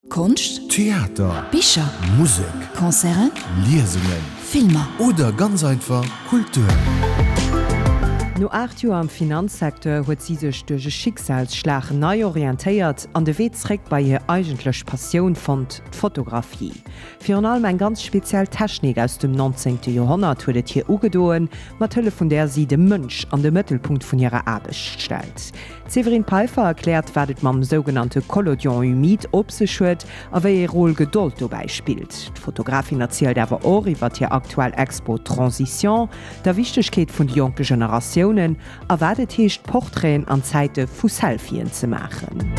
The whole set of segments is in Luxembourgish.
Konscht, Theater, Bicher, Musek, Concerten, Liesungen, Filmer. Oder ganz einfach Kultur. No 8 Joer am Finanzsecteur huet si sech duerch e Schicksalsschlag nei orientéiert an de Wee zréck bei hir eigentlech Passioun fonnt, d'Fotografie. Virun allem eng ganz speziell Technik aus dem 19. Joerhonnert huet et hir ugedoen, mat Hëllef vun där si de Mënsch an de Mëttelpunkt vun hirer Aarbecht stellt. D'Séverine Peiffer erkläert, wat et mam sougenannte Collodion humide op sech huet a wéi ee Rôle Gedold dobäi spillt. D'Fotografin erzielt awer och iwwer hir aktuell Expo Transition, der Wichtegkeet vun de jonke Generatiounen a wat et heescht, Portraiten an Zäite vu Selfien ze maachen.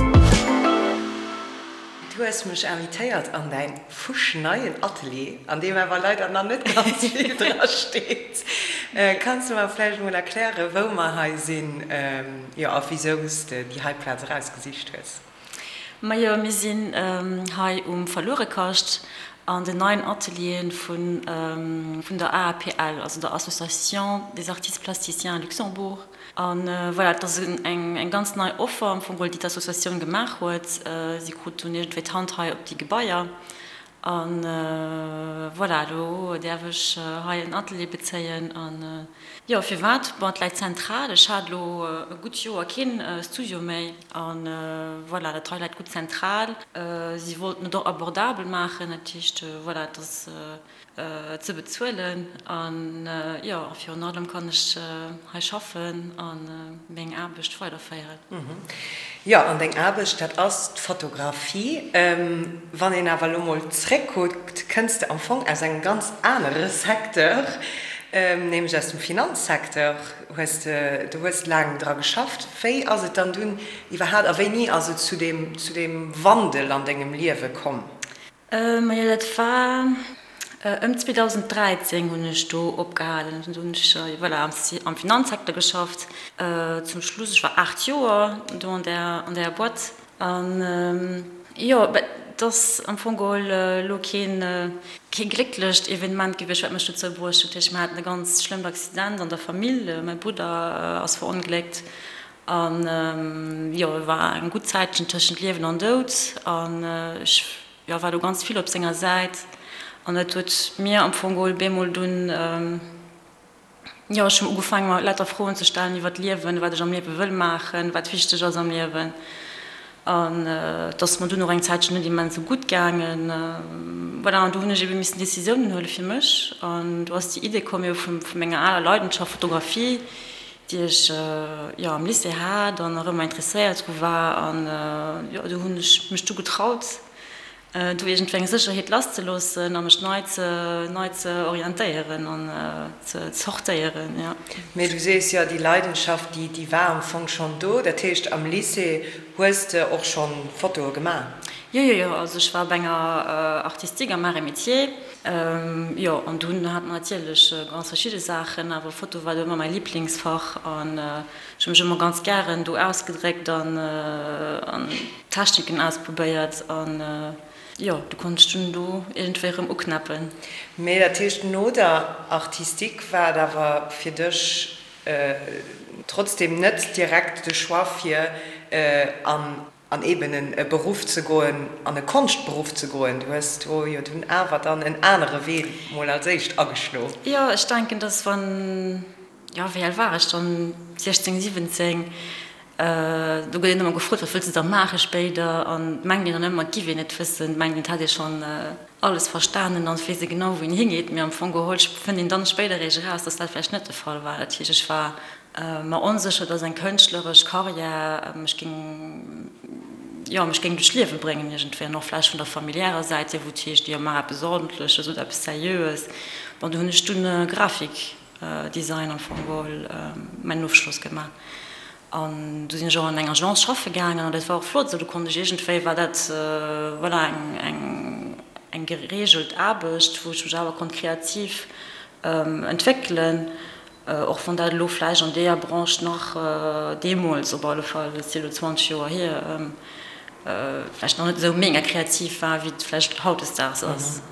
Du hues mech invitéiert an däin fuschneien Atelier, an deem awer leider nach net ganz vill dra steet. Kanns de mer vläicht emol erklären, wou mer hei sinn, jo, a wisou s de déi hei Plaz erausgesicht hues? Majo, mir sinn hei um Verluerekascht an den neien Atelieren vun der AAPL, also der Association des Artistes Plasticiens Luxembourg. A voilà, et ass eng ganz nei Offer am Fong geholl, déi d'Associatioun gemaach huet. Si krut dunn iergendwéi d'Hand hei op déi Gebaier. A voilà, elo däerf ech hei en Atelier bezéien. A jo, firwat? Bon, et läit zentral. Ech hat elo e gutt Joer keen Studio méi. A voilà, dat hei läit gutt zentral. Si wollten et och abordabel maachen, dat heescht, voilà, et ass ze bezuelen an jo, virun allem kann ech hei schaffen a meng Aarbecht weiderféieren. Jo, an deng Aarbecht, dat ass d'Fotografie. Wann een awer elo mol zréckkuckt, kënns de am Fong aus engem ganz anere Secteur, nämlech aus dem Finanzsecteur. Hues de, du hues laang dra geschafft. Wéi ass et dann dunn iwwerhaapt a wéini ass et zu deem, zu deem Wandel an dengem Liewe komm? Majo dat war ëm 2013 hunn ech do opgehalen. Do hunn ech voilà am Finanzsecteur geschafft. Zum Schluss, ech war 8 Joer do an där an där Boîte. An jo, et ass am Fong geholl elo keen kee glécklecht Evenement gewiescht wat mech dozou bruecht huet. Dat heescht mir haten e ganz schlëmmt Accident an der Famill, mäi Brudder ass verongléckt An jo, e war eng gutt Zäitchen tëschent Liewen an Doud. An ech, jo, war do ganz vill op senger Säit. An dat huet mir am Fong geholl bemol dunn, jo, ech hunn ugefaangen, mer lauter Froen ze stellen iwwer d'Liewen, wat ech am Liewe wëll maachen, wat wichteg ass am Liewen. An et ass mer dunn och eng Zäitchen net immens esou gutt gaangen. Voilà, an do hunn ech ebe missen Decisiounen huele fir mech. An do ass déi Idee komm, jo, vu menger aler Leidenschaft Fotografie, déi ech jo am Lycée hat an nach ëmmer interesséiert dru war an jo do hunn ech mech du getraut do iergendwéi eng Sécherheet lass ze loossen a mech nei ze nei ze orientéieren an ze zortéieren, jo. Mee du sees jo, déi Leidenschaft déi déi war am Fong schonn do, dat heescht am Lycée hues de och schonn Fotoe gemaach? Jo, jo, jo, also ech war op enger Artistique am Arts et Métiers. Jo, an dunn hat mer natierlech ganz verschidde Saachen, awer Foto war do ëmmer mäi Liblingsfach an ech hu mech ëmmer ganz gären do ausgedréckt an Techniken ausprobéiert an jo, du konnt ech dunn do iergendwéi erëm uknäppen. Mee dat heescht, no der Artistique war et awer fir dech trotzdem net direkt de Choix fir an An eben en e Beruff ze goen, an e Konschtberuff ze goen. Du hues do jo dunn awer dann en anere Wee mol als éischt ageschlo. Jo, ech denken, dass wann, jo, wéi al war ech dann, 16, 17, do gëtt een ëmmer gefrot, wat wëlls de da maache spéider? An et mengt een dann ëmmer, et giff een et wëssen, et mengt een, et hätt ee schonn alles verstanen an et weess ee genau, wou een hingeet. Mee am Fong geholl fënnt een dann spéider eréischt eraus, dass dat vläicht net de Fall war. Dat heescht, ech war mer onsécher, dass eng kënschtleresch Karriär mech géing, jo, mech géing duerch d'Liewe bréngen iergendwéi an och vläicht vun der familiärer Säit hier, wou et heescht, jo, maach eppes Ordentleches oder eppes Seriöes. Bon, do hunn ech dunn Grafikdesign am Fong geholl, mäin Ofschloss gemaach an du sinn ech och an eng Agence schaffe gaangen an dat war och flott esou. Do konnt ech iergendwéi, war dat, voilà, eng, eng, eng gereegelt Aarbecht, wou ech mech awer konnt kreativ entwéckelen. Och wann dat elo vläicht an deeër Branche nach, deemools op alle Fall, dat ass jo elo 20 Joer hier, vläicht nach net esou mega kreativ war, wéi et vläicht hautdesdaags ass.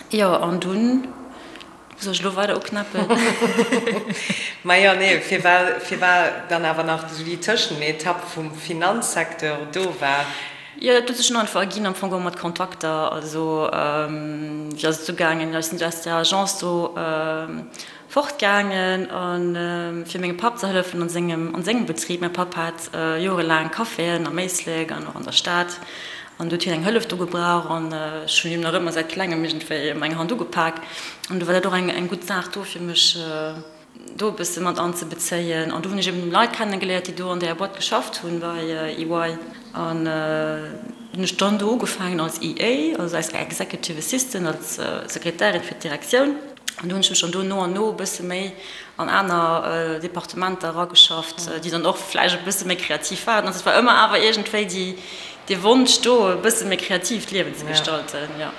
Jo, an dunn, wou soll ech elo weider uknäppen? Majo, nee, firwat, firwat dann awer nach esou déi Tëschenetapp vum Finanzsecteur do war? Jo, dat huet sech dunn einfach erginn, am Fong geholl mat Kontakter. Also wéi ass et ugaangen? Jo, ech sinn aus der Agence do fortgaangen a fir mengem Papp ze hëllefen an sengem an sengem Betrib. Mäi Papp hat jorelaang Caféen am Éislek an och an der Stad an do huet hien eng Hëllef do gebraucht an ech hunn him nach ëmmer säit klengem iergendwéi eng Hand ugepak an du war dat och eng eng gutt Saach do fir mech do e bësse mat anzebezéien. An do hunn ech eben Leit kennegeléiert, déi do an där Boîte geschafft hunn bei EY. An hunn ech dann do ugefaangen als EA, also als Executive Assistant, als Sekretärin fir d'Direktioun. An do hunn ech mech dann do no an no e bësse méi an aner Departementer erageschafft, déi dann och vläicht e bësse méi kreativ waren. Also et war ëmmer awer iergendwéi déi, dee Wonsch do, e bësse méi kreativ d'Liewen ze gestalten, jo.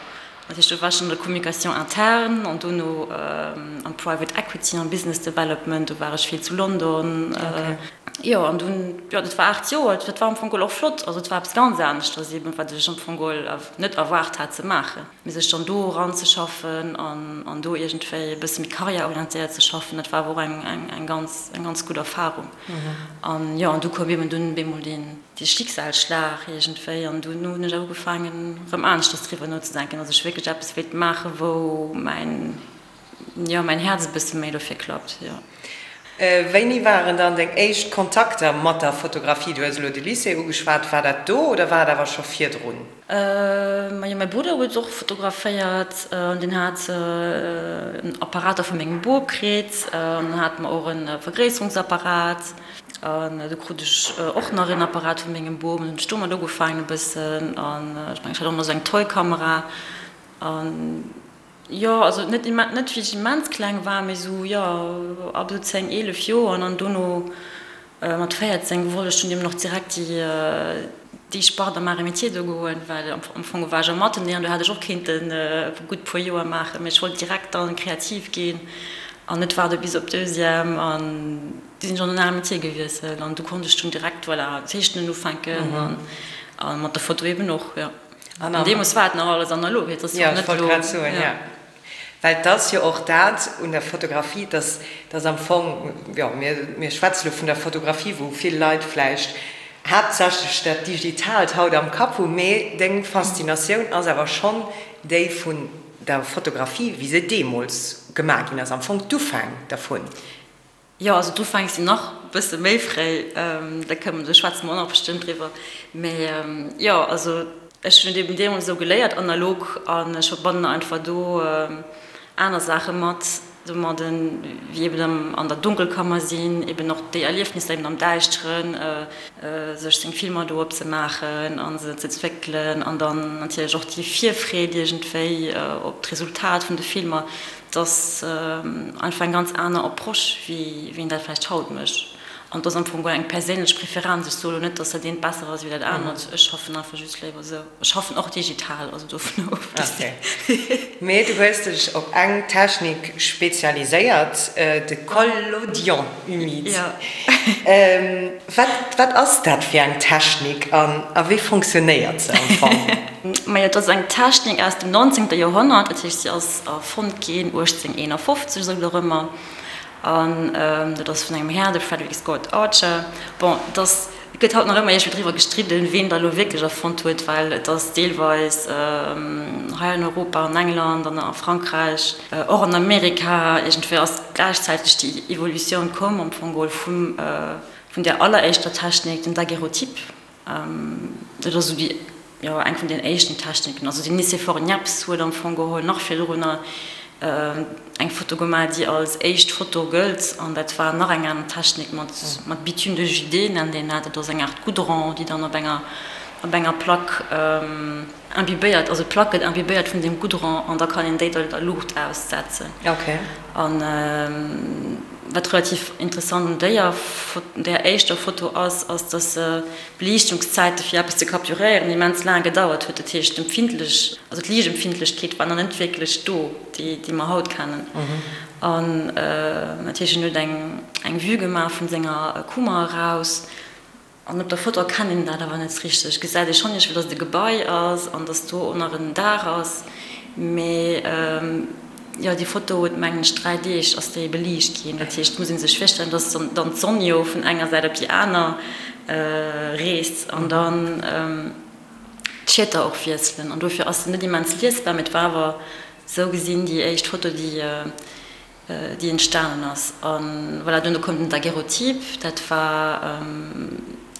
Dat heescht, do war ech an der Communication interne an dono am Private Equity, am Business Development, do war ech vill zu London. Jo, an dunn, jo, dat war 8 Joer, dat war am Fong geholl och flott. Also et war eppes ganz aneschters eben, wat ech am Fong geholl net erwaart hat ze maachen. Mee sech dann do eranzeschaffen an an do iergendwéi e bësse méi karriärorientéiert ze schaffen, dat war awer och eng eng eng ganz eng ganz gutt Erfarung. An jo, an du koum eben dunn bemol deen dee Schicksalsschlag iergendwéi an dunn hunn ech awer ugefaangen erëm aneschters driwwer nozedenken, dass ech wierklech eppes wéilt maachen, wou mäin Jo, mäin Häerz e bësse méi dofir klappt, jo. Wéini waren dann deng éischt Kontakter mat der Fotografie? Du hues elo de Lycée ugeschwat. War dat do oder war et awer scho virdrun? Majo, mäi Brudder huet och fotograféiert an deen hat en Apparater vu mengem Bop kritt an dann hate mer och e Vergréisserungsapparat an du krut ech och nach en Apparat vu mengem Bop an hunn ech domat ugefaangen e bëssen an ech mengen ech hat och nach esou eng Toy-Kamera an Jo, also net immens, net wéi ech immens kleng war, mee sou, jo, ab esou 10, 11 Joer. An dann dono mat 14 wollt ech dunn eben och direkt déi, déi Spart am Arts et Métiers do goen, well am Fong war ech am Atelier an do hätt ech och kéinten e gutt puer Joer maachen, mee ech wollt direkt dann kreativ ginn an net waarde bis op Deuxième. An du sinn ech an den Arts et Métiers gewiesselt an du konnt ech dunn direkt, voilà, zeechnen ufänken an mat der Foto eben och, jo. An deemools war et nach alles analog, et ass jo net elo. Jo, well et ass jo och dat un der Fotografie, dass dass am Fong, jo, mir mir schwätze lo vun der Fotografie, wou vill Leit vläicht haaptsächlech dat Digitaalt haut am Kapp hunn, mee deng Faszinatioun ass awer schonn déi vun der Fotografie, wéi se deemools gemaach ginn ass, am Fong d'Ufäng dervun. Jo, also d'Ufäng sinn nach e bësse méi fréi, da kënnen, do schwätze mer och nach bestëmmt driwwer. Mee jo, also ech hunn et eben deemools esou geléiert, analog, an ech verbannen einfach do aner Saache mat domadden, wéi eben an der Dunkelkammer sinn, eben och déi Erliefnisser eben am Däischteren, sech seng Filmer do opzemaachen a se ze entwéckelen an dann natierlech och déi Virfreed iergendwéi op d'Resultat vun de Filmer. Et ass einfach eng ganz aner Approche, wéi een dat vläicht haut mécht. An et ass am Fong guer eng perséinlech Preferenz. Ech soe lo net, datt dat eent besser ass wéi dat anert. Ech schaffen einfach just léiwer esou. Ech schaffen och digital, also dovun ofgesinn. Okay. Mee du hues dech op eng Technik spezialiséiert, de Collodion humide. Jo. Wat, wat ass dat fir eng Technik an a wéi fonctionnéiert se am Fong? Majo, et ass eng Technik aus dem 19. Joerhonnert, dat heescht, si ass erfonnt ginn 1851, esou dorëmmer, an dat ass vun engem Här, de Frederick Scott Archer. Bon, et ass, et gëtt haut nach ëmmer iergendwéi driwwer gestridden, ween dat elo wierklech erfonnt huet, well et ass deelweis hei an Europa, an England an a Frankräich, och an Amerika, iergendwéi ass gläichzäiteg déi Evolutioun komm am Fong geholl vum, vun där alleréischter Technik, den Daguerreotype. Dat ass esou déi, jo, eng vun den éischten Techniken. Also den Nicéphore Niépce huet am Fong geholl nach virdrunner eng Foto gemaach, déi als éischt Foto gëllt. An dat war nach eng aner Technik mat, mat Bitume de Judée nennt een dat. Dat ass eng Aart Goudron, déi dann op enger, op enger Plack imbibéiert, also d'Plack gëtt imbibéiert vun deem Goudron an da kann een déi der Luucht aussetzen. An wat relativ interessant un déier där éischter Foto ass, ass dass se d'Beliichtungszäite fir eppes ze capturéieren immens laang gedauert huet. Dat heescht d'Empfindlech, also d'Liichtempfindlechkeet war nach net wierklech do, déi déi mer haut kennen. An dat heescht en huet eng eng Vue gemaach vun senger Kummer eraus. An op der Foto erkennt een dat awer net richteg. Et gesäit ee schonn iergendwéi, dass et e Gebai ass an dass do och nach en Daach ass. Mee jo, déi Foto huet, mengen ech, 3 Deeg ass déi beliicht ginn. Dat heescht, et muss ee sech virstellen, dass dann d'Sonn jo vun enger Säit op déi aner reest an dann. D'Schieter och wiesselen an dofir ass se net immens liesbar, mee et war awer sou gesinn déi éischt Foto, déi déi entstanen ass. A voilà, duerno koum den Daguerreotype, dat war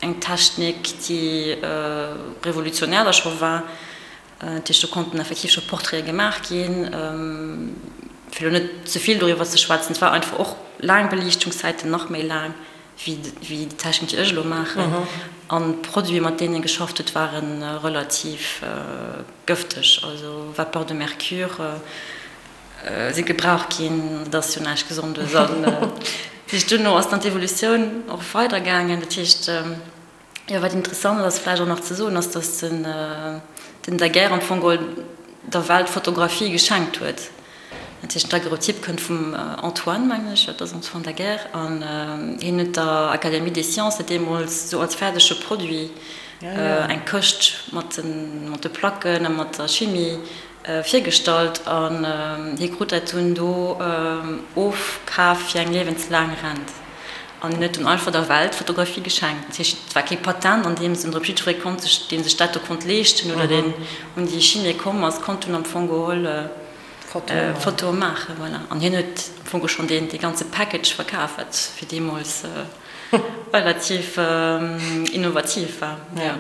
eng Technik, déi revolutionär da scho war. Dat heescht, do konnten effektiv scho Portraite gemaach ginn. Fir elo net ze vill doriwwer ze schwätzen, et war einfach och laang Beliichtungszäiten, nach méi laang wéi déi Technik, déi ech elo maachen. An d'Produite, mat deenen ee geschafft huet, ware relativ gëfteg, also Vapeur de mercure si gebraucht ginn. Dat ass jo näischt Gesondes. An dat heescht, duerno ass dann d'Evolutioun och weidergaangen. Dat heescht, Jo, wat interessant ass vläicht och nach ze soen, ass, datt den Daguerre am Fong geholl der Welt d'Fotografie geschenkt huet. Dat heescht, den Daguerreotyp kënnt vum Antoine, mengen ech, jo, et ass Antoine Daguerre, an hien huet der Académie des Sciences dat deemools esou als fäerdege Produit, eng Këscht mat de Placken a mat der Chimie virgestallt, an hie krut dat dunn do ofkaf fir eng liewenslaang Rent. An hien huet dunn einfach der Welt d'Fotografie geschenkt. Dat heescht, et war kee Patent an deem Sënn drop. Jiddweree konnt sech, dee sech dat do konnt leeschten oder deen un déi Chimie komm ass, konnt dunn am Fong geholl Fotoe maachen. Voilà. An hien huet am Fong schonn deen, dee ganze Package verkaf, wat fir deemools relativ innovativ war. Jo.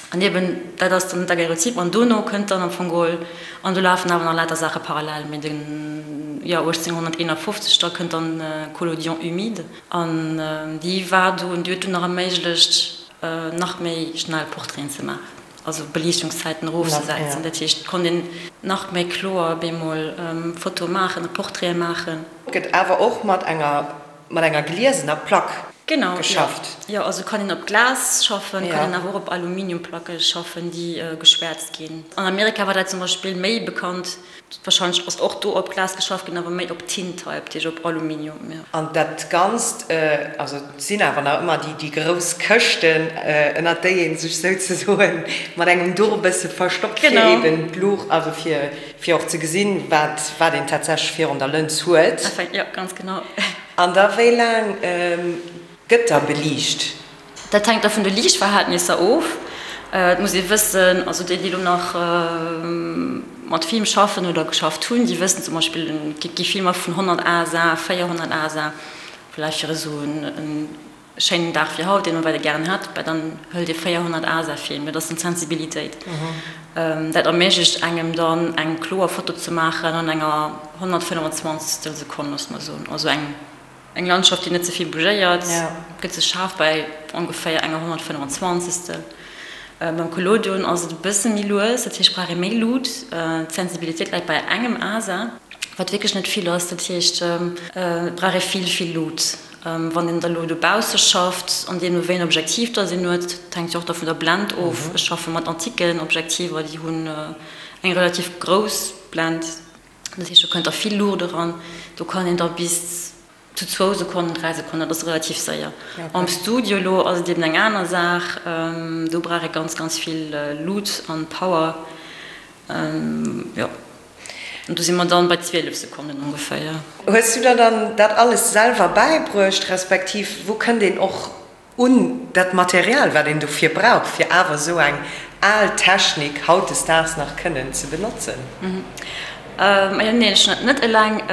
An eben, dat ass dann d'Daguerreotype. An dono kënnt dann am Fong geholl, an do lafen awer nach lauter Saache parallel, mee den, jo, 1851, da kënnt dann Collodion humide. An déi war dunn, déi huet dunn nach erméiglecht, nach méi schnell Portraiten ze maachen, also Beliichtungszäiten erofzesetzen. Dat heescht, et konnt een nach méi kloer bemol Fotoe maachen a Portraite maachen. Gëtt awer och mat enger Mat enger gliesener Plack geschafft. Genau, jo. Also kann een op Glas schaffen, kann een awer och op Aluminiumplacke schaffen, déi geschwäerzt ginn. An Amerika war dat zum Beispill méi bekannt. Warscheinlech ass och do op Glas geschafft ginn, awer méi op Tintype, dat heescht op Aluminium, jo. An dat Ganzt, also et sinn awer nach ëmmer déi grouss Këschten, ënnert déi ee sech souzesoen mat engem Duch e bësse verstoppt, fir eben d'Luucht, also fir Fir och ze gesinn, wat wat een tatsächlech virun der Lëns huet. Enfin, jo, ganz genau. An da wéi laang gëtt da beliicht? Dat hänkt da vun de Liichtverhältnisser of. Et muss ee wëssen, also déi, déi elo nach mat Film schaffen oder geschafft hunn, déi wëssen zum Beispill, et gi Filmer vun 100 ASA, 400 ASA, vläicht fir esou en Schéinen Dag wéi haut, deen man weider gären hätt, bah dann hëlt ee 400 ASA-Film, dat ass dann d'Sensibilitéit. Dat erméiglecht engem dann eng kloer Foto ze maachen an enger 125 Sekonn, loosse mer soen. Also eng eng Landschaft, déi net ze vill bougéiert, gëtt sech schaarf bei ongeféier enger 125. Beim Collodion ass et e bësse méi lues, dat heescht brauch ee méi Lut. D'Sensibilitéit läit bei engem ASA, wat wierklech net vill ass, dat heescht et brauch ee vill, vill Lut. Wann een da lo dobausse schafft, an deemno wéi en Objektiv dass een huet, dat hänkt jo och da vun der Blend of. Ech schaffe mat antiken Objektiver, déi hunn eng relativ grouss Blend, dat heescht do kënnt da vill Luucht eran. Do kann een da bis zu zwou Sekonnen, dräi Sekonnen, dat ass relativ séier. Am Studio lo ass et eben eng aner Saach, do brauch ee ganz, ganz vill Luut an Power, jo. An do si mer dann bei 12 Sekonnen ongeféier. Hues du der dann dat alles selwer bäibruecht, respektiv wou kënnt een och un dat Material, wat een dofir brauch, fir awer esou eng al Technik hautdesdaags nach kënnen ze benotzen? Majo, neen, ech hunn dat net eleng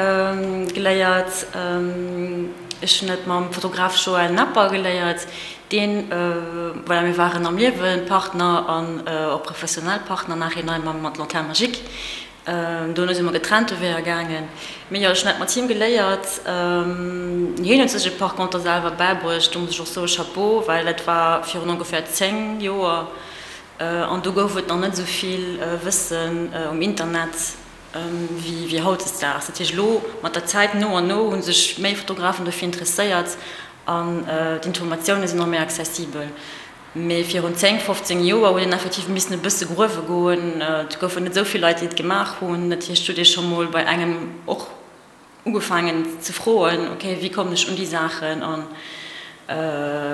geléiert. Ech hunn dat mam Fotograf Joël Napper geléiert, deen, voilà, mir waren am Liewe Partner an och professionell Partner nachhinein mam mat Lanterne Magique. Dono si mer getrennte Weeër gaangen. Mee jo, ech hunn dat mat him geléiert. Hien huet sech et par conter selwer bäibruecht. Do muss ech och soe Chapeau, well dat war virun ongeféier 10 Joer an do gouf et nach net esou vill Wëssen um Internet wéi hautdesdaags. Dat heescht, elo mat der Zäit, no an no, hu sech méi Fotografen dofir interesséiert an d'Informatioune sinn och méi accessibel. Mee virun 10, 15 Joer huet een effektiv missen e bësse gruewe goen. Et goufen net esou vill Leit, déi et gemaach hunn. Dat heescht, huet ee scho mol bei engem och ugefaangen ze froen, ok, wéi kommen ech un déi Saachen an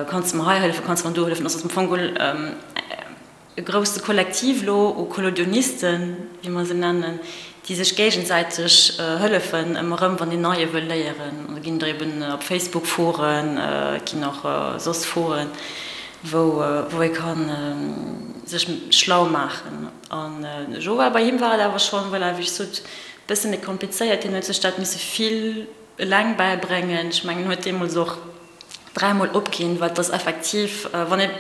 kanns de mer hei hëllefen, kanns de mer do hëllefen. Also ass am Fong geholl e grousse Kollektiv elo u Collodionisten, wéi mer se nennen, déi sech géigesäiteg hëllefen ëmmer erëm, wann een Neie wëll léieren. An da ginn der eben op Facebook Foren, et ginn och soss Foren. wou wou ee kann sech schlau maachen. An Joël, bei him war et awer schonn, voilà, wéi ech sot, bësse méi komplizéiert, hien huet sech dat misse vill eleng bäibréngen. Ech mengen, en huet deemools och dräimol opginn, well et ass effektiv, wann ee,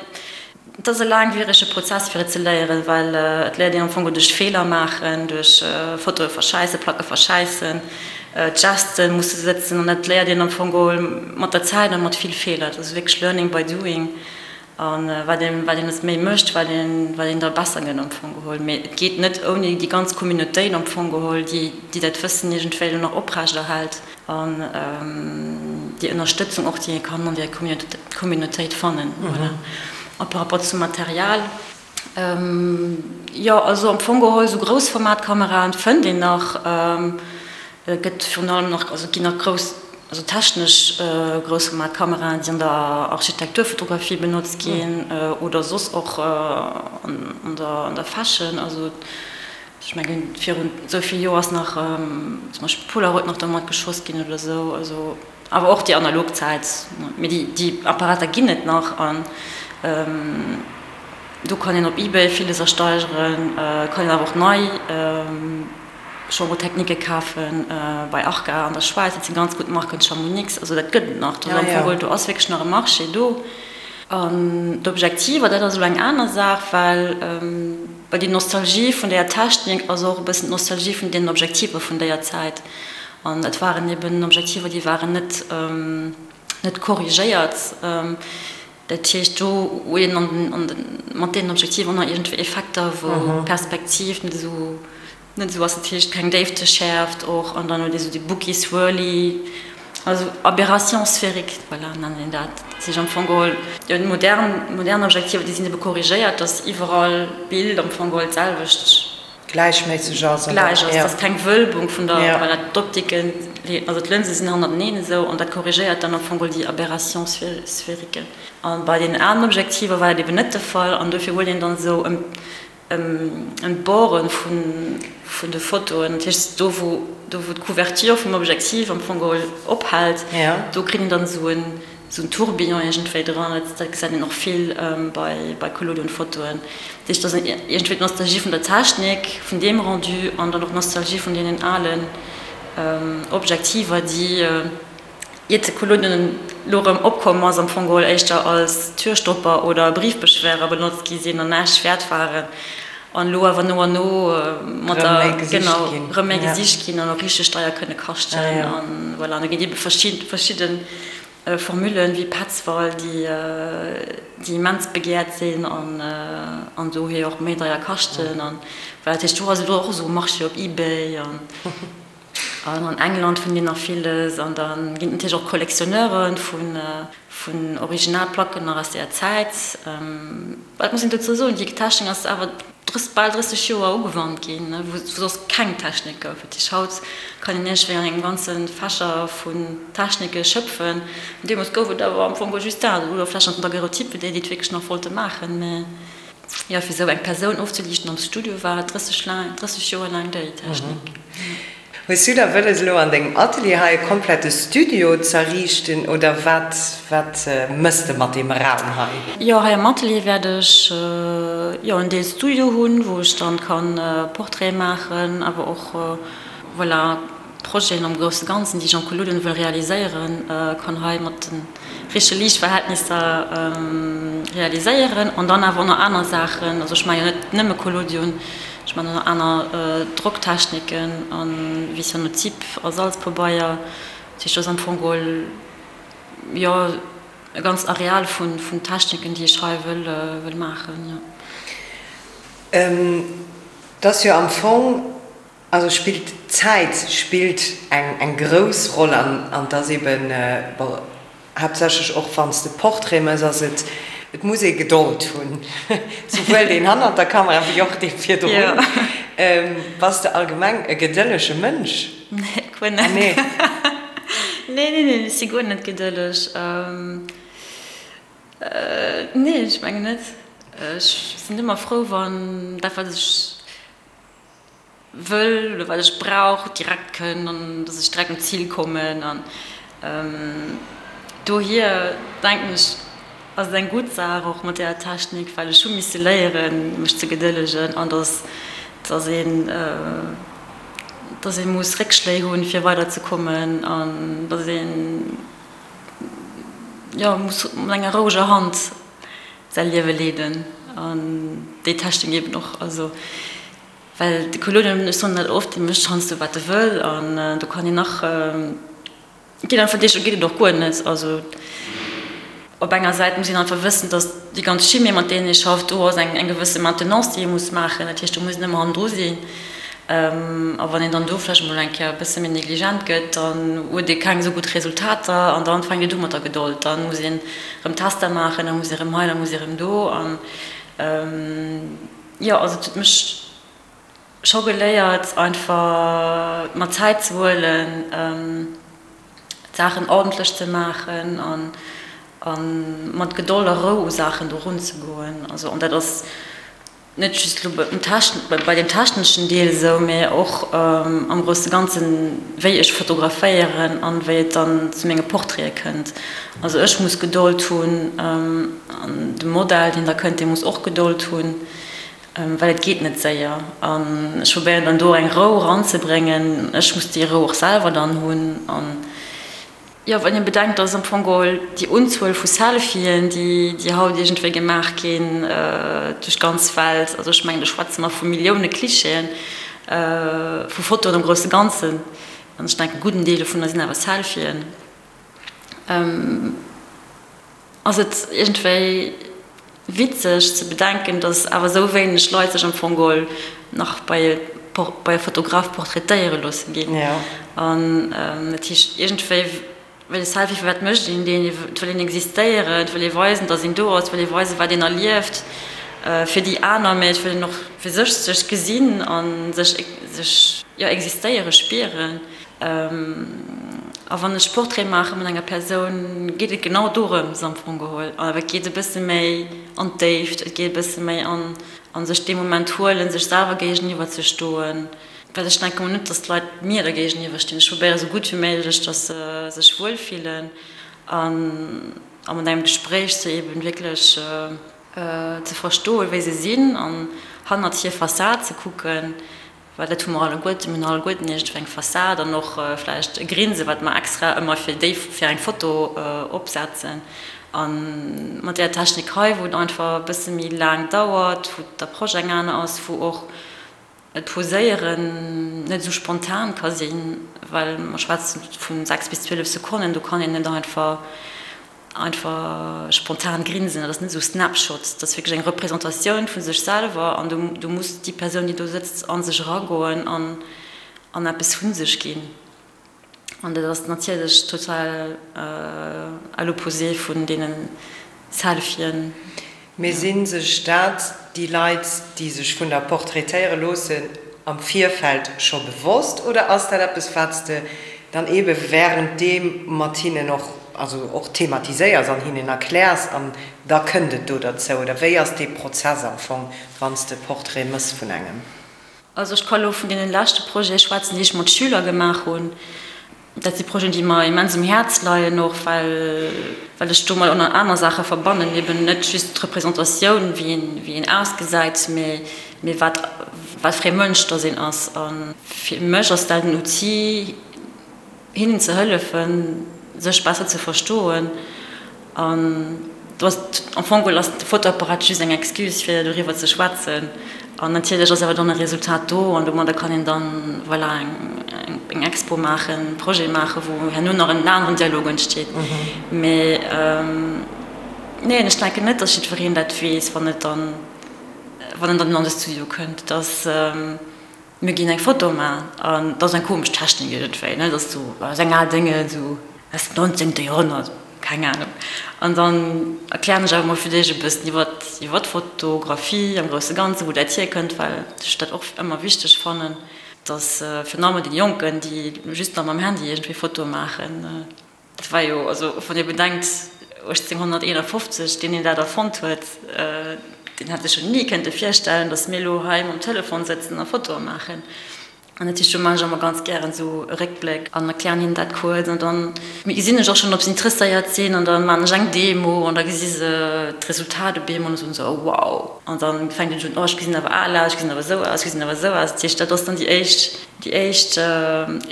et ass e laangwierege Prozess fir et ze léieren, well et léiert een am Fong duerch Feeler maachen, duerch Fotoe verschäissen, Placke verschäissen, d'Geste musse sëtzen an dat léiert een am Fong geholl mat der Zäit a mat vill Feeler. Et ass wierklech learning by doing a wat een, wat een et méi mécht, wat een, wat een da besser gëtt am Fong geholl. Mee et geet net ouni déi ganz Communautéit am Fong geholl, déi, déi dat Wëssen iergendwéi elo nach oprechterhält. An déi Ënnerstëtzung och, déi ee kann an där Communautéit fannen. Voilà. A par rapport zum Material, jo, also am Fong geholl, esou Groussformatkameraen fënnt een nach. Et gëtt virun allem nach, also et ginn nach grouss, also technesch Groussformatkameraen, déi an der Architekturfotografie benotzt ginn oder soss och an der Fashion. Also Ech mengen, virun esou vill Joer ass nach zum Beispill Polaroid nach domat geschoss ginn oder esou. Also, awer och déi analog Zäit. Mee déi, déi Apparater ginn et nach an do kann een op Ebay villes ersteigeren, kann een awer och nei Chambre-techniquë kafen bei Arca an der Schwäiz. Dat si ganz gutt Marken, Chamonix, also dat gëtt et nach. Do ass am Fong geholl, do ass wierklech nach e Marché do. An d'Objektiver, dat ass elo eng aner Saach, well Well déi Nostalgie vun deeër Technik ass och e bëssen d'Nostalgie vun deenen Objektiver vun deeër Zäit. An et waren eben Objektiver, déi waren net, net korrigéiert. Dat heescht, do huet een an, an de, mat deenen Objektiver och nach iergendwéi Effekter, wou d'Perspektiv net esou, net esou ass. Dat heescht, keng Déifteschäerft och. An dann huet ee sou déi Bookie Swirly. Also Aberration sphérique, voilà, nennt een dat. Dat heescht am Fong geholl, jo, déi modern, modern Objektiver, déi sinn ebe korrigéiert, dass iwwerall d'Bild am Fong geholl d'selwecht. Gläichméisseg ass, oder? Gläich ass, dass keng Wölbung vun der, voilà, d'Optiken, also d'Lënse sinn hannerteneen esou, an dat korrigéiert dann am Fong geholl déi Aberration sphérique. A bei deenen alen Objektiver war dat eben net de Fall, an dofir huet een dann esou ëm Ëm d'Borde vun de Fotoen, dat heescht do wou do wou d'Couverture vum Objektiv am Fong geholl ophält, do kritt een dann esou en esou en Tourbillon iergendwéi dran. Dat dat gesäit een och vill bei bei Collodion-Fotoen. Dat heescht, dat ass iergendwéi d'Nostalgie vun der Technik, vun deem Rendu an dann och d'Nostalgie vun deenen alen Objektiver, déi Iert de Collodion elo erëm opkomm ass, am Fong geholl éischter als Türstopper oder Briefbeschwerer benotzt gi sinn an näischt wäert waren, an elo awer no an no mat der, genau, erëm méi gesicht ginn an och richteg deier kënne kaschten. An voilà, an do ginn et ebe verschidde Formullen, wéi Petzval, déi déi immens begehrt sinn an an dohier och méi deier kaschten. An voilà, dat heescht, do ass elo och esou e Marché op Ebay an. An an England fënnt een nach villes. An da ginn et natierlech och Collectionneure vun Originalplacken nach aus deeër Zäit. Wat muss een dozou soen, déi Technik ass awer bal 30 Joer ugewannt ginn, wou soss keng Technik gouf. Dat heescht, haut kann een iergendwéi an engem ganze Fächer vun Technike schöpfen. Deemools gouf et awer am Fong just dat, oder vläicht nach den Daguerreotype, fir déi, déi et wierklech nach wollte maachen. Mä Jo, fir esou eng Persoun ofzeliichten am Studio war et 30 laang, 30 Joer laang déi Technik. Hues du da wëlles elo an dengem Atelier hei e komplette Studio z'erriichten oder wat wat mëss de mat deem Raum hei? Jo, hei am Atelier wäert ech jo en Deel Studio hunn, wou ech dann kann Portraite maachen, awer och voilà Projeten am grousse Ganzen, déi ech am Collodion wëll realiséieren, kann hei mat den richtege Liichtverhältnisser realiséieren. An dann awer och nach aner Saachen, also ech maache jo net nëmme Collodion, ech maachen och nach aner Drocktechniken a wéi Cyanotyp a Salzpabeier. Dat heescht, do ass am Fong geholl, jo, e ganzt Areal vun Techniken, déi ech hei wëll maachen, jo. Et ass jo am Fong Also spillt d'Zäit spillt eng eng grouss Roll an an et ass eben, bon, haaptsächlech och wann s de Portrait mëss, ass et, et muss ee Gedold hunn, souwuel deen hannert der Kamera wéi och dee virdrun. Bass de allgemeng e gedëllege Mënsch? Nee, guer net. Nee, nee, nee, ech si guer net gedëlleg. Nee, ech mengen net. Ech sinn ëmmer frou, wann dat, wat ech wëll oder wat ech brauch, direkt kënn an dass ech direkt un d'Zil kommen. An dohier denken ech. Ass et eng gutt Saach och mat deeër Technik, well ech hu misse léieren, mech ze gedëllegen an dass, dass een, dass ee muss Réckschléi hunn, fir weiderzekommen an dass een, jo, muss mat enger roueger Hand säi Liewe leeden an déi Technik eben och. Also, well de Collodion, ech soen dat oft, dee mécht heiansdo wat e wëll an do kann een nach. Ginn einfach Deeg, do geet et och guer net. Also op enger Säit muss een einfach wëssen, datt déi ganz Chimie, mat deenen ee schafft, do ass eng eng gewësse Maintenance, déi ee muss maachen. Dat heescht, do muss een ëmmer hannendru sinn. A wann een dann do vläicht emol eng Kéier e bësse méi negligent gëtt, dann huet ee keng esou gutt Resultater an dann fänkt et u mat der Gedold. Dann muss een erëm Tester maachen, da muss ee erëm hei, da muss ee erëm do. An jo, also et huet mech Scho geléiert einfach mer Zäit ze huelen, d'Saachen ordentlech ze maachen an mat Gedold a Rou u Saachen do runzegoen. Also an dat ass net just elo bei deem techneschen Deel esou, mee och am grousse Ganzen, wéi ech fotograféieren an wéi et dann zu menge Portraite kënnt. Also ech muss Gedold hunn an de Modell, deen da kënnt, dee muss och Gedold hunn. Well et geet net séier an ech probéieren dann do eng Rou eranzebréngen. Ech muss déi Rou och selwer dann hunn. An jo, wann ee bedenkt, dass am Fong geholl déi Unzuel vu Selfien, déi déi haut iergendwéi gemaach ginn duerch d'ganz Welt, also ech mengen do schwätze mer vu Millioune Clichéen, vu Fotoen am grousse Ganzen, an ech denken e gudden Deel dovunner sinn awer Selfien, ass et iergendwéi witzeg ze bedenken, datt awer esou wéineg Leit sech am Fong geholl nach bei bei e Fotograf portraitéiere loosse ginn. An dat heescht iergendwéi, well e Selfie, firwat mécht een deen? Et wëll een existéieren, et wëll ee weisen, datt een do ass, et wëll ee weisen, wat een erlieft fir déi aner, mä et wëll een och fir sech sech gesinn a sech sech jo existéiere spieren. A wann ech Portrait maache mat enger Persoun, geet et genau dorëms am Fong geholl. Awer et geet e bësse méi an d'Déift, et geet e bësse méi an an sech dee Moment huelen, sech selwer géigeniwwer ze stoen. Well ech denke mol net, datt d'Leit mir da géigeniwwer stinn. Ech probéiere sou gutt wéi méiglech, datt se sech wuel fillen an a mat engem Gespréich se eben wierklech ze verstoen, wéi se sinn an hannert hir Fassad ze kucken. Well dat hu mer alleguerten, mir hunn alleguerten iergendwéi eng Fassad an och vläicht e Grinse wat mer extra ëmmer fir déi, fir eng Foto opsetzen. A mat där Technik hei, wou et einfach e bësse méi laang dauert, wou d'Approche eng aner ass, wou och d'Poséieren net esou spontan ka sinn, well mer schwätzen vu 6 bis 12 Sekonnen, do kann een net einfach Einfach spontan grinsen, dat ass net esou Snapshot, dat ass wierklech eng Representatioun vu sech selwer an do muss déi Persoun, déi do sëtzt, a sech eragoen an an eppes vu sech ginn. An dat ass natierlech total à l'opposé vun deene Selfien. Mee si sech dat déi Leit, déi sech vun der portraitéiere loossen, am Virfeld scho bewosst oder ass dat eppes, wat s de dann eebe wärenddeem mat hinnen och, also och thematiséiers an hinnen erkläers an da kënnt et do derzou? Oder wéi ass dee Prozess am Fong, wann s de e Portrait mëss vun engem? Also ech ka lo vun deene leschte Projete schwätzen, déi ech mat Schüler gemaach hunn. Dat si Projeten, déi mer immens um Häerz leien, och well well ech domat och nach aner Saache verbannen, eben net just d'Representatioun, wéi een wéi een ausgesäit, mee mee wat wat fir ee Mënsch dass een ass. A fir mech ass dat en Outil, hinnen ze hëllefen, sech besser ze verstoen. An do ass am Fong geholl ass de Fotoapparat just eng Excuse fir doriwwer ze schwätzen. An natierlech ass awer dann e Resultat do an domadder kann een dann, voilà, eng Expo maachen, e Projet maachen, wou herno nach en aneren Dialog entsteet. Mee neen, ech denken net, datt jiddwereen dat weess, wann et dann, wann en dann an de Studio kënnt, datt. Mir ginn eng Foto man an dat ass eng komesch Technik iergendwéi, ne, dat ass sou aus eng al Dénge sou aus dem nonzéngte Joerhonnert, keng Ahnung. An dann erklären ech awer mol fir d'éischt e bëssen iwwer iwwer d'Fotografie am grousse Ganzen, wou dat hierkënnt, well ech dat och ëmmer wichteg fannen, dass virun allem deene Jonken, déi just nach mam Handy iergendwéi Fotoe maachen, Dat war jo, also wann ee bedenkt, 1851, deen deen dat erfonnt huet, deen hätt sech jo ni kënnte virstellen, datt mir elo hei mam Telefon sëtzen a Fotoe maachen. An dat heescht, do maachen ech ëmmer ganz gären esou e Réckbléck an erklären hinnen dat kuerz. An dann gesinn ech och schonn, ob se interesséiert sinn. An da maachen ech eng Demo an da gesi se d'Resultat op eemol an da soen se, oh wow. An da fänkt een un, oh ech gesinn awer al aus, ech gesinn awer esou aus, ech gesinn awer esou aus. Dat heescht, dat ass dann déi éischt, déi éischt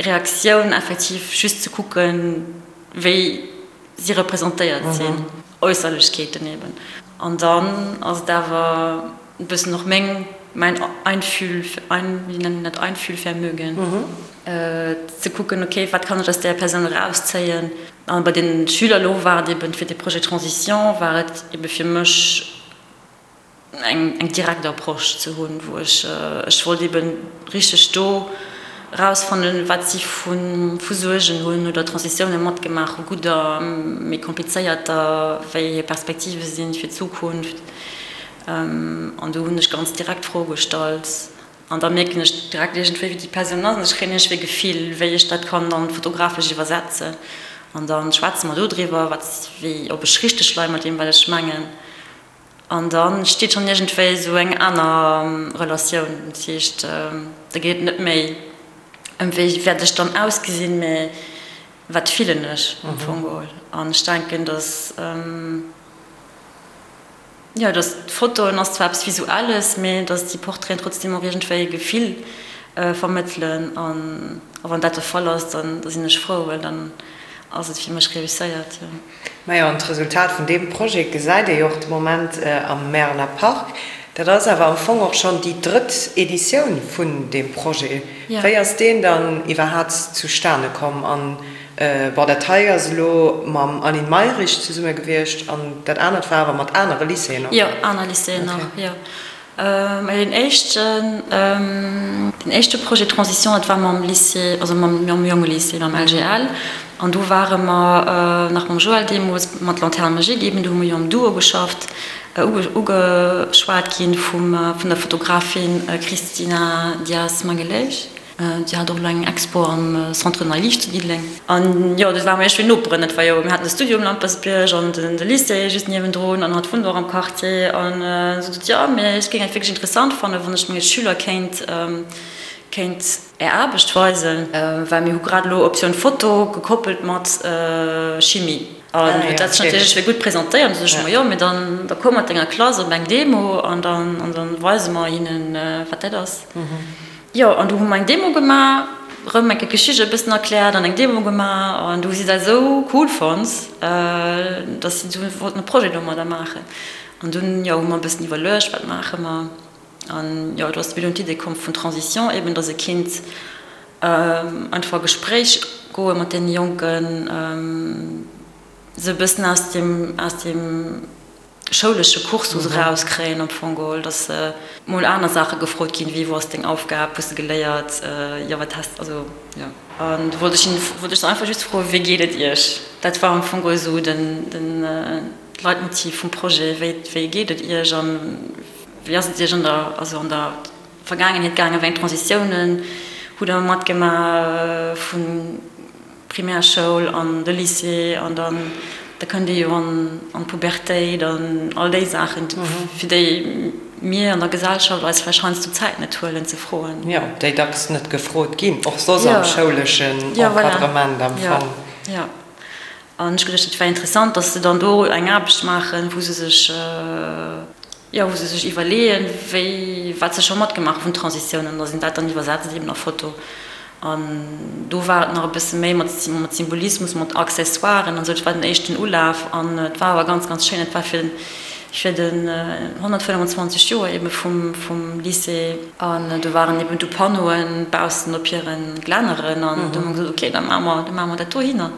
Reaktioun effektiv just ze kucken, wéi si representéiert sinn, Äusserlechkeeten eben. An dann ass et awer e bëssen och meng, mäin Einfühl, ein, wéi nennt een dat, Einfühlvermögen, ze kucken, okay, wat kann ech aus där Persoun erauszéien. An bei den Schüler elo war et eben fir de Projet Transition war et ebe fir mech, eng direkt Approche ze hunn, wou ech, ech wollt eben richteg do erausfannen, wat si vu Suergen hunn oder Transitioune matgemaach hu, gudder, méi komplizéierter, wéi hir Perspektive sinn fir d'Zukunft. An do hunn ech ganz direkt Froe gestallt an da mierken ech direkt iergendwéi, wéi déi Persoun ass an ech kréien iergendwéi e Gefill, wéi ech dat kann dann fotografesch iwwersetzen. An da schwätze mer do driwwer, wat, wéi, ob ech richteg leie mat deem, wat ech mengen. An da steet schonn iergendwéi esou eng aner Relatioun. Dat heescht, da geet et net méi ëm wéi wäert ech dann ausgesinn, mä wat fillen ech am Fong geholl. An ech denken, datt, jo, datt d'Fotoen ass zwar eppes Visuelles, mä datt déi Portraiten trotzdeem och iergendwéi e Gefill vermëttelen. An wann dat de Fall ass, dann da sinn ech frou, well dann ass et fir mech reusséiert, jo. Majo, an d'Resultat vun deem Projet gesäit ee jo och de Moment am Märeler Park. Dat ass awer am Fong och schonn déi drëtt Editioun vun deem Projet. Wéi ass deen dann iwwerhaat zustane komm? An, bon, dat hei ass elo mam Aline Mayrisch zesumme gewiescht an dat anert war awer mat anere Lycéeën och? Jo, aner Lycéeën och, jo. Mä deen éischten, deen éischte Projet Transition, dat war mam Lycée, also mam Jongelycée, mam LGL. An do ware mer nach mam Joël deemools mat Lanterne magique eben, do hu mer jo am Duo geschafft, ugeschwat gi vum, vun der Fotografin Cristina Dias Magalhães. Si hat och elo eng Expo am Centre Nei Liicht zu Diddeleng. An jo, do ware mer iergendwéi Noperen. Dat war jo, mir haten de Studio um Lampertsbierg an de Lycée just niewendrun an hatt wunnt och am Quartier. An si sot, jo, mee ech géing et wierklech interessant fannen, wann ech menge Schüler kéint, kéint Är Aarbecht weisen, well mir hu grad elo Optioun Foto gekoppelt mat Chimie. An huet dat sech natierlech wéi gutt presentéiert. An du sot ech, ma jo, mee dann, da komm mat denger Klass op eng Demo an dann, an dann weise mer hinnen, wat dat ass. Jo, an du hu mer eng Demo gemaach, rëm eng Kéier d'Geschicht e bëssen erkläert an eng Demo gemaach an du hu si dat esou cool fonnt, dass si du wollten e Projet domadder maachen. An dunn, jo, hu mer e bëssen iwwerluecht, wat maache mer? An jo, do ass mir dunn d'Idee komm vun Transition eben, dass e kinnt einfach a Gespréich goe mat deene Jonken, se e bëssen aus dem, aus dem. schoulesche Cursus erauskréien am Fong geholl, dass mol aner Saache gefrot ginn, wéi wou ass deng Aufgab, hues de geléiert, jo wat has, also jo. An du wollt ech hinnen, wollt ech se einfach just froen, wéi geet et iech? Dat war am Fong geholl esou den, den Leitmotiv vum Projet, wéi, wéi geet et iech an wéi ass et iech an der, also an der Vergaangenheet gaangen, wéi eng Transitiounen hutt der matgemaach vun Primärschoul an de Lycée an dann da kënnt ee jo an d'Pubertéit an all déi Saachen, fir déi mir an der Gesellschaft eis vläicht heiansdo d'Zäit net huelen ze froen. Jo, déi dacks net gefrot ginn, och soss am schouleschen Encadrement am Fong. Jo, an ech geduecht, et wär interessant, datt se dann do eng Aarbecht maachen, wou se sech, jo, wou se sech iwwerleeën, wéi, wat se scho matgemaach hu vun Transitiounen, an datt een dat dann iwwersetzt eben a Foto. An do war et nach e bësse méi mat Symbolismus, mat Accessoiren an esou. Dat war den éischten Ulaf an et war awer ganz, ganz schéin. Et war fir fir den 125 Joer ebe vum vum Lycée. An do waren eben du Panneauen baussen op hire Glänneren an du hu mer gesot, okay, da maache mer, da maache mer dat dohinner.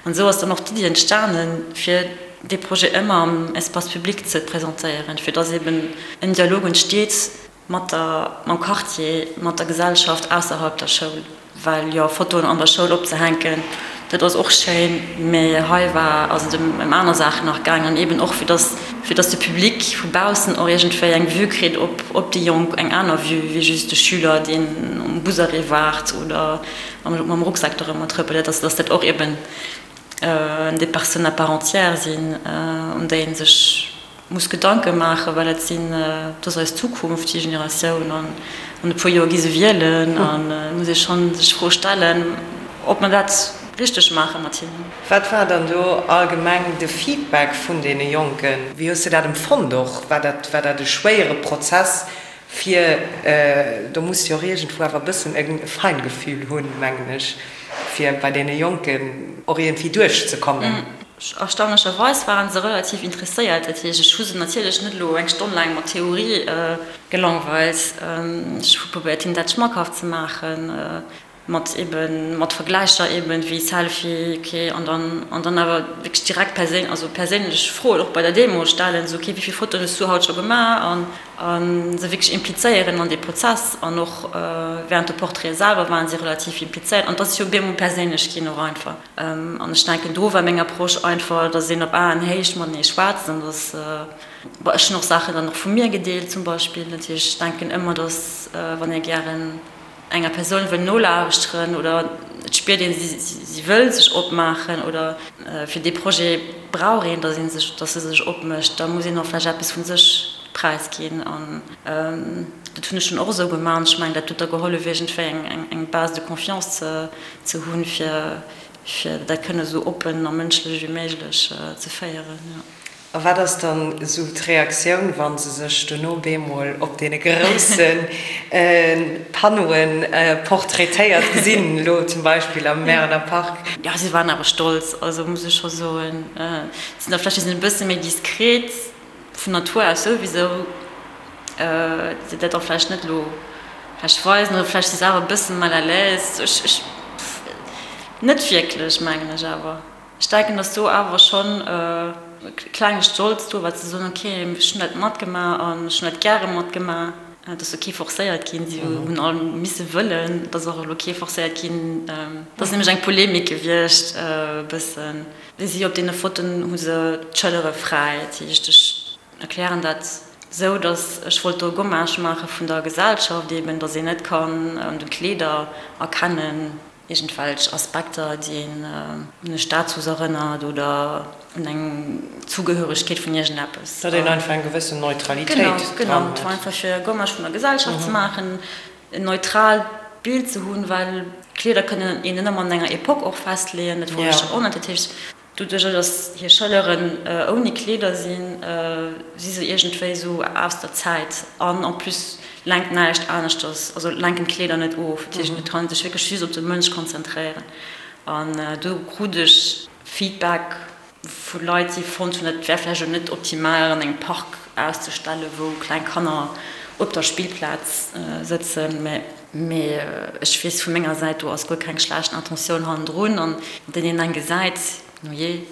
An esou ass dann och d'Iddi entstanen, fir dee Projet ëmmer am Espace public ze presentéieren, fir dass eben en Dialog entsteet, Mat der, mam Quartier, mat der Gesellschaft ausserhalb der Schoul. Well jo, Fotoen an der Schoul opzehänken, dat ass och schéin, mä hei war, ass et ëm aner Saachen nach gaangen an eben och fir dass, fir dass de Public vu baussen och iergendwéi eng Vue kritt op, op déi Jonk, eng aner Vue wéi just de Schüler, deen um Busarrêt waart oder mam, mam Rucksak dorëmmer trëppelt, dass, dass dat och eben des personnes à part entière sinn, un déi ee sech. muss Gedanke maachen, well dat sinn, dat ass eis Zukunft, déi Generatioun, an an e puer Joer gi se wielen an et muss ee schonn sech d'Fro stellen, ob mer dat richteg maache mat hinnen. Wat war dann do allgemeng de Feedback vun deene Jonken? Wéi hues de dat empfonnt och? War dat, war dat e schwéiere Prozess fir, do muss de jo och iergendwou awer e bëssen e Feingefühl hunn, mengen ech, fir bei deene Jonken och iergendwéi duerchzekommen? Erstaunlecherweis waren se relativ interesséiert. Dat heescht, ech hu se natierlech net elo eng Stonn laang mat Theorie gelangweilt. Ech hu probéiert, hinnen dat schmackhaft ze maachen, mat eben, mat Vergläicher eben, wéi Selfie, ok, an dann, an dann awer wierklech direkt perséin, also perséinlech Froen och bei der Demo stellen, esou, ok, wéi vill Fotoen hues du haut scho gemaach? An, a se wierklech implizéieren an dee Prozess. An och während de Portraite selwer waren si relativ implizéiert. An et ass jo bemol perséinlech ginn och einfach. An ech denken, do war meng Approche einfach, dass een op Aenhéicht matenee schwätzt an dass, bon, ech hunn och Saachen dann och vu mir gedeelt zum Beispill. Natierlech, ech denken ëmmer, dass wann ee gären enger Persoun wëll nolauschteren oder et spiert een, si wëll sech opmaachen oder fir dee Projet brauch een, dass ee sech, dass se sech opmécht, da muss een och vläicht eppes vu sech präisginn. An dat hunn ech dunn och esou gemaach an ech mengen, dat huet da gehollef iergendwéi eng Base de confiance ze ze hunn, fir fir dat kënne esou oppen a mënschlech wéi méiglech ze féieren, jo. A wat ass dann esou d'Reaktioun, wa se sech dono bemol op deene grousse Panneauen portraitéiert gesinn, elo zum Beispill am Märener Park? Jo, si waren awer stolz, also muss ech scho soen. Sinn da vläicht e bësse méi diskret. Vun Natur aus souwisou, déi dat och vläicht net elo vläicht weisen oder vläicht si se awer e bëssen mal à l'aise. Ech, ech, net wierklech, mengen ech awer. Ech denken, datt do awer schonn e klenge Stolz do war, ze soen, ok, ech hunn dat matgemaach an ech hunn dat gäre matgemaach. Et ass jo kee forcéiert ginn, si hunn all misse wëllen, et ass och elo kee forcéiert ginn. Et ass nämlech eng Polemik gewiescht e bëssen. Si op deene Fotoen hu se d'Schëllere fräi. Dat heescht, ech erklären dat esou, datt ech wollt do e Gommage maache vun der Gesellschaft eben, datt een net kann un de Kleeder erkennen, iergendwelch Aspekter, déi een un e Status erënnert oder un eng Zugehöregkeet vun iergendeppes. Datt een einfach eng gewëssen Neutralitéit dran huet. Genau, genau. Et war einfach fir e Gommage vun der Gesellschaft ze maachen. En neutraalt Bild ze hunn, well Kleeder kënnen een net ëmmer an enger Epoque och festleeën, dat wollt ech och net. Dat heescht, doduerch datt hir Schëlleren ouni Kleeder sinn, si se iergendwéi esou aus der Zäit an en plus lenkt näischt aneschters, also lenken d'Kleeder net of. Dat heescht, et kann ee sech wierklech just op de Mënsch konzentréieren an do krut ech Feedback Vu Leit, déi fonnt hunn, et wär vläicht elo net optimal, an engem Park auszestellen, wou kleng Kanner op der Spillplaz sëtzen. Mee ech weess vu menger Säit, do ass guer keng schlecht Intentioun hannendrun. An deen een eng gesäit, no jee,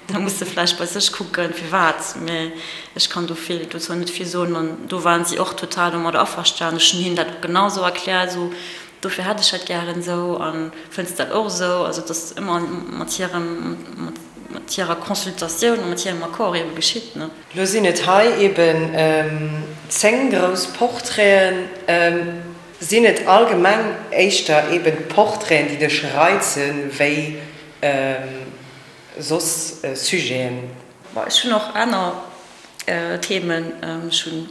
da muss e vläicht bei sech kucken, firwat. Mee ech kann do vill, dozou net vill soen. An do waren si och total domadder averstanen. Ech hunn hinnen dat genau esou erkläert, esou Dofir hätt ech dat gären esou. A fënns de dat och esou? Also et ass ëmmer mat hirem, mat hirer Consultatioun a mat hirem Accord ebe geschitt, ne? Lo sinn et hei eben 10 grouss Portraiten. Sinn et allgemeng éischter eben d'Portraiten, déi dech reizen, wéi soss Sujeten? Bon, ech hunn och aner Themen. Ech hunn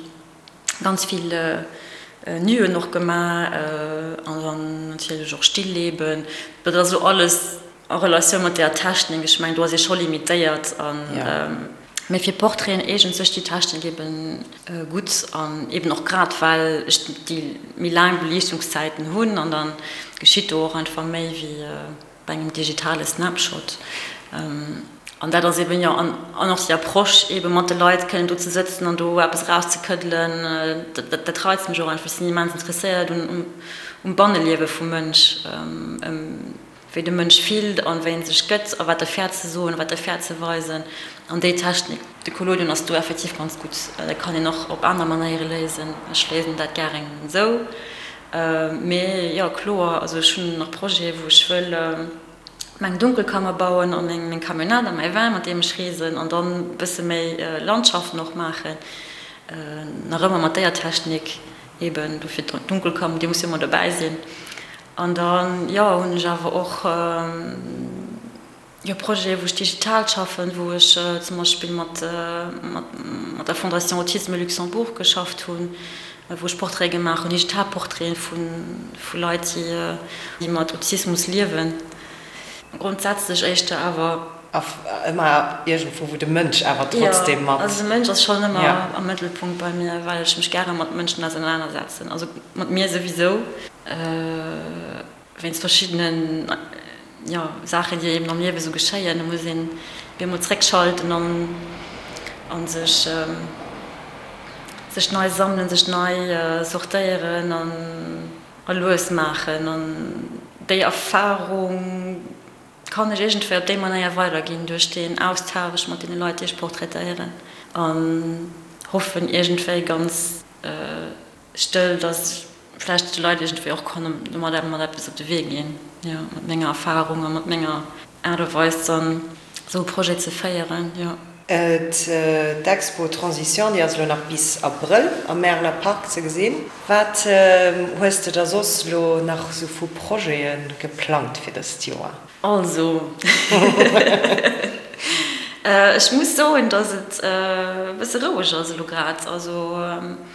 ganz vill Nuen och gemaach an dann natierlech och Stillleben. Dat ass elo alles a Relatioun mat där Technik. Ech mengen, do ass ee scho limitéiert an, mee fir Portraiten eegent sech déi Technik eben gutt an eben och grad well ech déi méi laang Beliichtungszäiten hunn an da geschitt do och einfach méi wéi. Bei engem digitale Snapshot. An dat ass eben, jo, an och déi Approche eben mat de Leit kënnen do ze sëtzen an do eppes erauszekëddelen, dat, dat reizt mech och einfach. Ech sinn immens interesséiert un, um Banneliewe vum Mënsch, ëm wéi de Mënsch fillt an wéi en sech gëtt a wat e fäert ze soen, wat e fäert ze weisen. An déi Technik, de Collodion ass do effektiv ganz gutt. Dat kann een och op aner Manéiere léisen. Ech léisen dat gären esou. Mee jo, kloer, also ech hunn nach Projete wou ech wëll meng Dunkelkammer bauen a meng Camionnette a mäi Van mat deem ech reesen an dann e bësse méi Landschaften och maachen, nach ëmmer mat déier Technik eben, dofir d'Dunkelkammer, déi muss jo ëmmer dobäi sinn. An dann, jo, hunn ech awer och. Jo, Projete wou ech digital schaffen, wou ech zum Beispill mat mat der Fondation Autisme Luxembourg geschafft hunn, wou ech Portraite gemaach hunn, digital Portraiten vu vu Leit, déi déi mat Autismus liewen. Grondsätzlech éischter awer. Ëmmer iergendwou, wou de Mënsch awer trotzdem mat. Jo, also de Mënsch ass schonn ëmmer am Mëttelpunkt bei mir, well ech mech gäre mat Mënschen ausenanersetzen, also mat mir souwisou. Wéinst verschiddenen, jo, Saachen, déi eben am Liewe sou geschéien, do muss een op eemol zréckschalten an a sech, sech nei sammelen, sech nei sortéieren an a lues maachen. An déi Erfarung kann ech iergendwéi op déi Manéier weiderginn, duerch deen Austausch mat deene Leit, déi ech portraitéieren an hoffen iergendwéi ganz stëll, dass vläicht de Leit iergendwéi och kann domadder mat eppes op de Wee ginn, jo, mat menger Erfahrung a mat menger Aart a Weis dann esou e Projet ze féieren, jo. D'Expo Transition, déi ass elo nach bis Abrëll am Märeler Park ze gesinn. Wat hues de da soss elo nach esou vu Projete geplangt fir dëst Joer? Also, ech muss soen, dass et e bësse roueg ass elo grad. Also,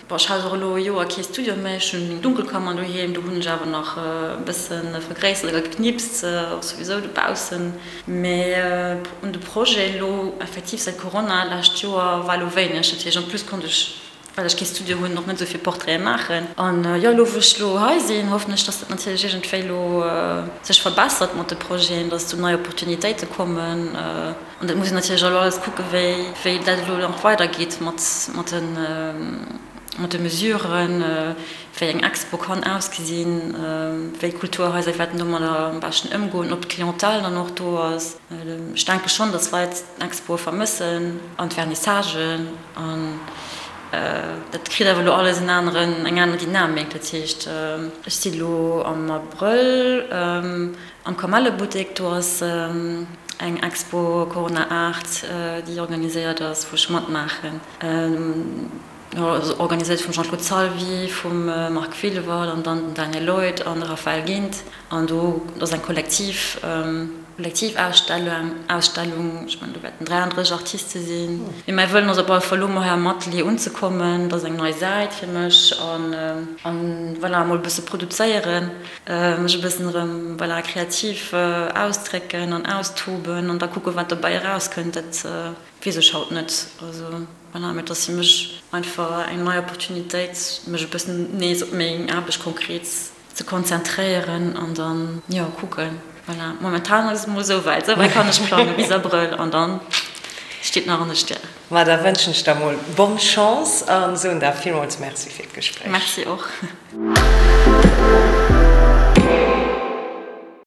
bon, ech hat och elo e Joer kee Studio méi. Ech hunn meng Dunkelkammer doheem, do hunn ech awer nach e bësse vergréissert a geknipst, och souwisou dobaussen. Mee un de Projet elo effektiv säit Corona lescht Joer war elo wéineg. Dat heescht, en plus konnt ech well ech kee Studio hunn, och net esou vill Portraiten maachen. An jo, elo wou ech elo hei sinn, hoffen ech, dass dat natierlech iergendwéi elo sech verbessert mat de Projeten, dass do nei Opportunitéite kommen. An dat muss een natierlech elo alles kucken, wéi wéi dat elo nach weidergeet mat mat de mat de Mesuren, wéi eng Expo kann ausgesinn, wéi d'Kulturhaiser wäerten domadder am beschten ëmgoen, ob d'Clientèle dann och do ass. Ech denke schonn, dass Leit d'Expoe vermëssen an d'Vernissagen. An dat kritt awer elo alles en aneren, eng aner Dynamik. Dat heescht, ech si elo am Abrëll am Kamellebuttek, do ass eng Expo Corona Art, déi organiséiert ass, wou ech matmaachen. Organiséiert vum Jean-Claude Salvi, vum Marc Wilwert an dann den Daniel Lloyd an de Raphaël Gindt. An do ass eng kollektiv Kollektivausstellung, Ausstellung, ech mengen do wäerten 33 Artiste sinn. Mee mäi Wëllen ass op alle Fall elo mol hei am Atelier unzekommen, dat ass eng nei Säit fir mech an an voilà emol e bësse produzéieren, mech e bëssen erëm voilà kreativ ausdrécken an austoben an da kucke wat dobäi erauskënnt. Dat weess ech haut net. Also voilà, mee et ass fir mech einfach eng nei Opportunitéit mech e bëssen nees op meng Aarbecht konkret ze konzentréieren an dann, jo, kucken. Voilà, momentan ass et mol esou wäit. Esou wäit kann ech plangen, bis Abrëll an dann steet nach an de Stären. Ma da wënschen ech der mol bonne Chance an soen der villmools Merci fir d'Gespréich. Merci och.